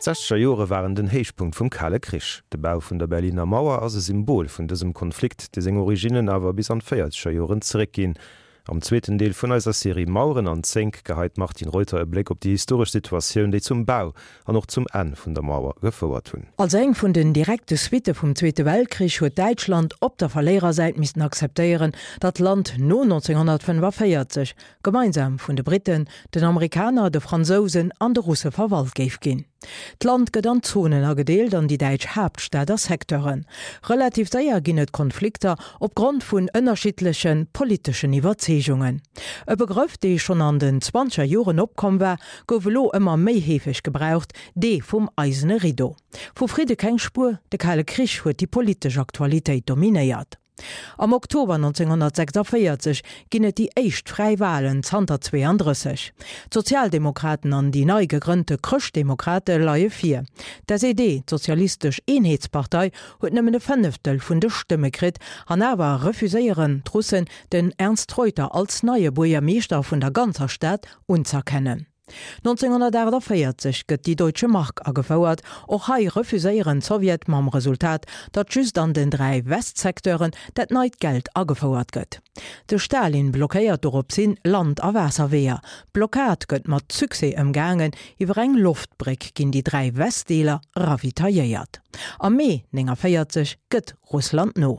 D'Sechzeger Jore waren den Héichpunkt vum Kale Krich. De Bau vun der Berliner Mauer ass e Symbol vun dësem Konflikt, dee seng Originnen awer bis an d'Véierzeger Joren zeréckginn. Am zweeten Deel vun eiser Serie Maueren an Zénk geheit d'Martine Reuter e Bléck op déi historesch Situatioun, déi zum Bau an och zum Enn vun der Mauer gefouert hunn. Als eng vun den direkte Suitte vum Zweete Weltkrich huet Däitschland op der Verléierersäit missten akzeptéieren, datt d'Land no 1945 gemeinsam vun de Britten, den Amerikaner, de Fransousen an de Russe verwalt géif ginn. D'Land gëtt an Zonen agedeelt an déi däitsch Haaptstad a Secteuren. Relativ séier ginn et Konflikter opgrond vun ënnerschiddleche politeschen Iwwerzeegungen. E Begrëff, dee schonn an den zwanzeger Joren opkomm war, gouf elo ëmmer méi heefeg gebraucht, dee vum eisene Rideau. Vu Fridde keng Spuer, de Kale Krich huet déi politesch Aktualitéit dominéiert. Am Oktober 1946 ginn et déi éischt fräi Walen zanter 32. D'Sozialdemokraten an déi nei gegrënnte Chrëschtdemokrate leie vir. D'SED, d'Sozialistesch Eenheetspartei, huet nëmmen e Fënneftel vun de Stëmme kritt an awer refuséieren d'Russen den Ernst Reuter als neie Buergermeeschter vun der ganzer Stad unz'erkennen. 1948 gëtt déi Deutsche Mark agefouert. Och hei refuséieren d'Sowjet mam Resultat, datt just an den 3 Westsecteuren dat neit Geld agefouert gëtt. De Stalin blockéiert doropshin Land a Waasserweeër. D'Blockad gëtt mat Succès ëmgaangen, iwwer eng Loftbréck ginn déi 3 Westdeeler ravitailléiert. Am Mee 49 gëtt Russland no.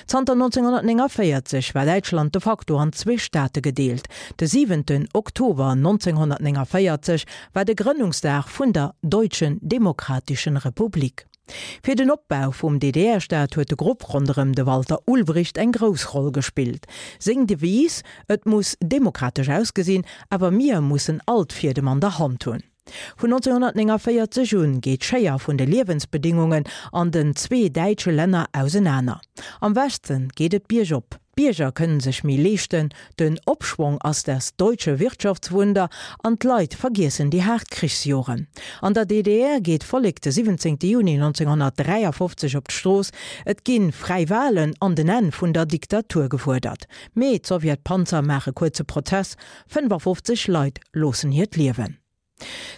Zanter 1949 war Däitschland de facto an zwee Staate gedeelt. De siwenten Oktober 1949 war de Grënnungsdag vun der Deutschen Demokratischen Republik. Fir den Opbau vum DDR-Staat huet de Grupp ronderëm de Walter Ulbricht eng grouss Roll gespillt. Seng Devise, Et muss demokratesch ausgesinn, awer mir mussen all d'Fiedem an der Hand hunn. Vun 1949 un geet d'Schéier vun de Liewensbedingungen an den zwee däitsche Länner ausenaner. Am Westen geet et biergop, d'Bierger kënnen sech méi leeschten, den Opschwong ass das deutsche Wirtschaftswunder an d'Leit vergiessen déi haart Krichsjoren. An der DDR geet d'Vollek de 17 Juni 1953 op d'Strooss, et gi fräi Walen an den Enn vun der Diktatur gefuerdert. Mee d'Sowjetpanzer maache kuerze Prozess, 55 Leit loossen hiert Liewen.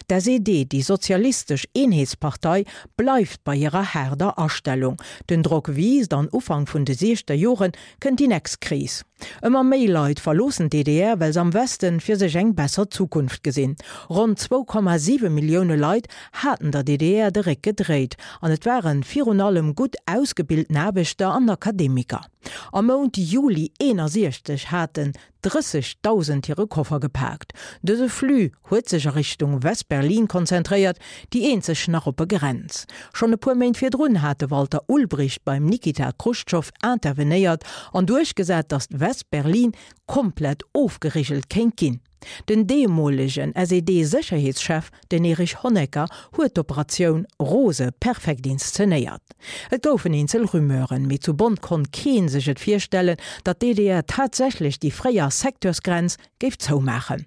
D'SED, déi Sozialistesch Eenheetspartei, bleift bei hirer haarder Astellung. Den Drock wiisst an Ufank vun de siechster Jore kënnt déi nächst Kris. Ëmmer méi Leit verloossen d'DDR, well se am Westen fir sech eng besser Zukunft gesinn. Ronn 2,7 Millioune Leit haten der DDR de Réck gedréit an et ware virun allem gutt ausgebilten Aarbechter an Akademiker. Am Mount Juli 61 haten 30.000 hire Koffer gepaakt. Dëse Flux huet sech a Richtung West-Berlin konzentréiert, déi eenzeg nach oppe Grenz. Schonn e puer Méint virdrun hat de Walter Ulbricht beim Nikita Chruschtschow intervenéiert an duerchgesat, datt West-Berlin komplett ofgerigelt kéint ginn. Den deemolegen SED-Sécherheetschef, den Erich Honecker, huet d'Operatioun Rose perfekt inszenéiert. Et goufen eenzel Rumeuren, mee zu Bonn konnt kee sech et virstellen, datt d'DDR tatsächlech déi fréier Secteursgrenz géif zoumaachen.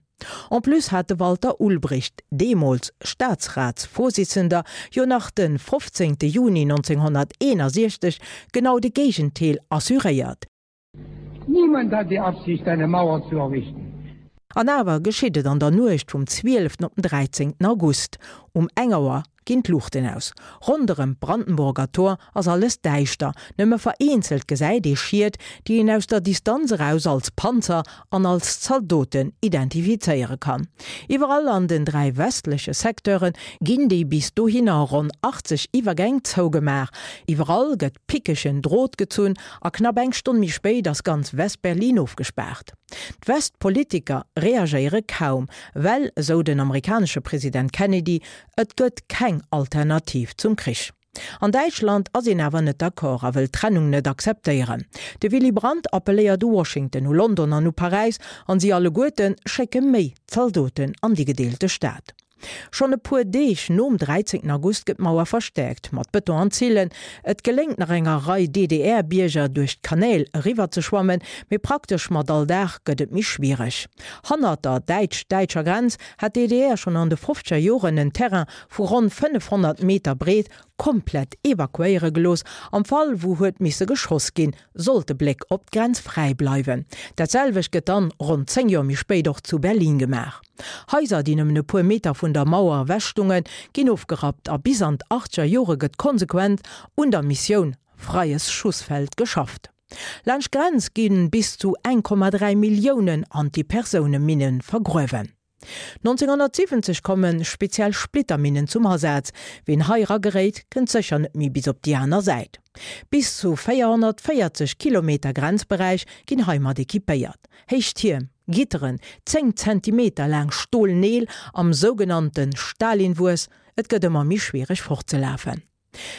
En plus hat de Walter Ulbricht, deemools Staatsratsvorsitzender, jo nach de 15 Juni 1961 genau de Géigentel assuréiert. Niemand hat die Absicht, eine Mauer zu errichten. An awer geschitt et an der Nuecht vum 12 op den 13 August. Um eng Auer ginn d'Luuchten aus. Ronderëm d'Brandenburger Tor ass alles däischter, nëmme vereenzelt gesäit ee Schied, déi een aus der Distanz eraus als Panzer an als Zaldoten identifizéiere kann. Iwwerall an den 3 westleche Secteure ginn déi bis dohinner ronn 80 Iwwergäng zougemaach. Iwwerall gëtt pickegen Drot gezunn A knapp eng Stonn méi spéit ass ganz West-Berlin ofgespaart. D'West-Politiker reagéiere kaum, well, esou den amerikanesche President Kennedy, et gëtt keng Alternativ zum Krich. An Däitschland ass een awer net d'accord a wëll d'Trennung net akzeptéieren. De Willy Brandt appelléiert u Washington, u London an u Paräis, an si alleguerte schécke méi Zaldoten an déi gedeelte Stad. Schonn e puer Deeg nom 13 August gëtt d'Mauer verstäerkt, mat Bëton an Zillen. Et geléngt nach enger Rei DDR-Bierger duerch d'Kanäl eriwwer ze schwammen, mee praktesch mat all Dag gëtt et méi schwiereg. Hannert der däitsch-däitscher Grenz hat d'DDR schonn an de fofzeger Joren en Terrain vu ronn 500 Meter breet. komplett evakuéiere gelooss, am Fall wou huet misse geschoss ginn, sollt de Bléck op d'Grenz fräi bleiwen. Dat selwecht gëtt dann ronn 10 Joer méi spéit och zu Berlin gemaach. Haiser, déi nëmmen e puer Meter vun der Mauer ewech stungen, ginn ofgerappt a bis an d'Achtger Jore gëtt konsequent un der Missioun Freies Schussfeld geschafft. Laanscht d'Grenz gi bis zu 1,3 Milliounen Antipersouneminne vergruewen. 1970 komme speziell Splitterminnen zum Asaz. Ween hei erageréit, kënnt sécher net méi bis op déi aner Säit. Bis zu 440 Kilometer Grenzberäich ginn heimat equipéiert. Héich Tierm, Gitteren, 10 Zentimeter laang Stolneel am sougenannte Stalinwuess, et gëtt ëmmer méi schwiereg fortzelafen.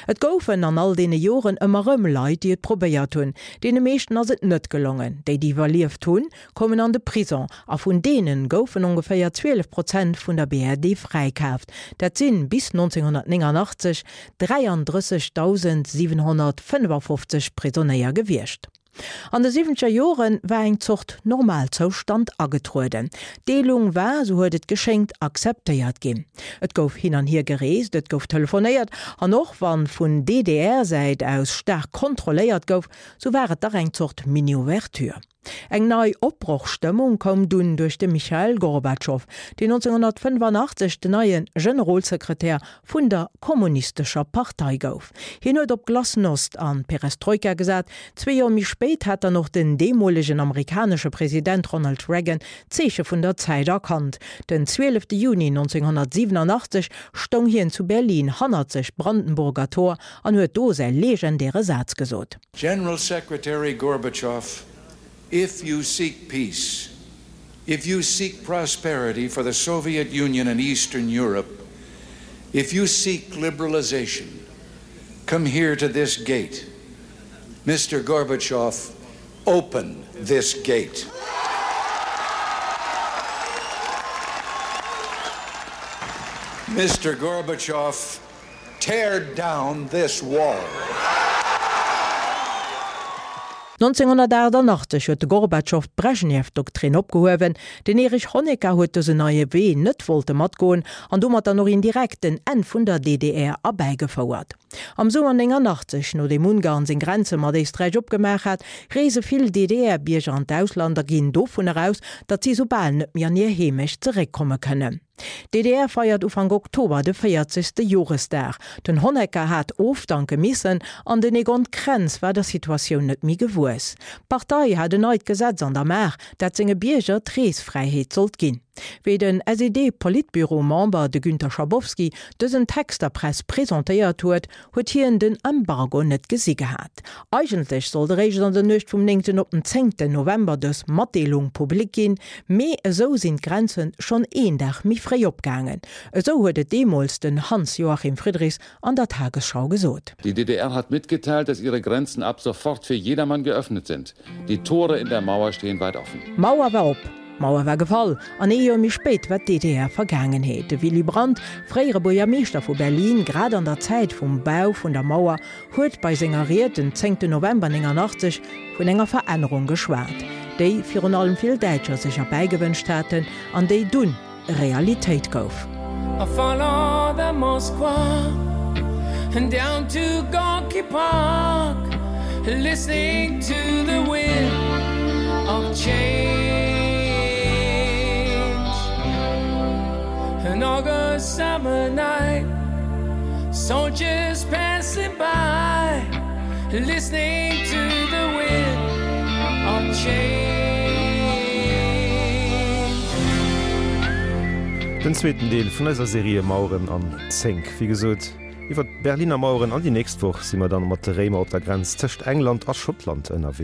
Et goufen an all deene Joren ëmmer rëm Leit, déi et probéiert hunn. Deene meeschten ass et net gelongen. Déi, déi iwwerlieft hunn, koumen an de Prison a vun deene goufen ongeféier 12 Prozent vun der BRD fräikaaft. Dat sinn bis 1989 33.755 Prisonéier gewiescht. An de siwwenzeger Jore war eng Zort Normalzoustand agetrueden. D'Deelung war, sou huet et geschéngt, akzeptéiert ginn. Et gouf hin an hier gereest, et gouf telefonéiert an och wann vun DDR-Säit aus staark kontrolléiert gouf, sou war et dach eng Zort Mini-Ouverture. Eng nei Opbrochstëmmung koum dunn duerch de Michail Gorbatschow, deen 1985 den neie Generolsekretär vun der Kommunistescher Partei gouf. Hien huet op Glasnost an Perestroika gesat. Zwee Joer méi spéit hat dann och den deemolegen amerikanesche President Ronald Reagan d'Zeeche vun der Zäit erkannt. Den 12 Juni 1987 stoung hien zu Berlin hannert sech d'Brandenburger Tor an huet do säi legendäre Saz gesot. General Secretary Gorbachev, if you seek peace, if you seek prosperity for the Soviet Union and Eastern Europe, if you seek liberalization, come here to this gate. Mr. Gorbachev, open this gate. Mr. Gorbachev, Tear down this wall! 1988 huet de Gorbatschow d'Brejnew-Doktrin opgehuewen. Den Erich Honecker huet dësen neie Wee net wollte matgoen an domat dann och indirekt den Enn vun der DDR erbäigefouert. Am Summer 89, nodeem Ungarn seng Grenze mat Éisträich opgemaach hat, reese vill DDR-Bierger an d'Ausland a ginn dovunner aus, datt si soubal net méi an hir Heemecht zeréckkomme kënnen. D'DDR feiert Ufank Oktober de 40. Joresdag. Den Honecker hat ofdanke missen an den Egon Krenz war der Situatioun net méi gewuess. D'Partei hat en neit Gesetz an der Maach, dat senge Bierger d'Reesfräiheet sollt ginn. Wéi den SED-Politbüro-Member, de Günter Schabowski, dësen Text der Press presentéiert huet, huet hien den Embargo net gesi gehat. Eigentlech sollt eréischt an der Nuecht vum néngten op den zéngten November dës Matdeelung public ginn, mee esou sinn d'Grenze schonn een Dag méi fréi opgaangen. Esou huet et deemools den Hans-Joachim Friedrichs an der Tagesschau gesot. Die DDR hat mitgeteilt, dass ihre Grenzen ab sofort für jedermann geöffnet sind. Die Tore in der Mauer stehen weit offen. D'Mauer war op. D'Mauer war gefall an ee Joer méi spéit war d'DDR Vergaangenheet. De Willy Brandt, fréiere Buergermeeschter vu Berlin, grad an der Zäit vum Bau vun der Mauer, huet bei senger Ried den 10 November 89 vun enger Verännerung geschwat, déi virun allem vill Däitscher sech erbäigewënscht haten an déi dunn Realitéit gouf. I follow the Moskwa and down to Gorky Park listening to the wind of change An August summer night soldiers passing by listening to the wind of change. Den zweeten Deel vun eiser Serie Maueren an Zénk. Wéi gesot, iwwer d'Berliner Maueren an déi nächst Woch si mer dann mat de Réimer op der Grenz tëscht England a Schottland ënnerwee.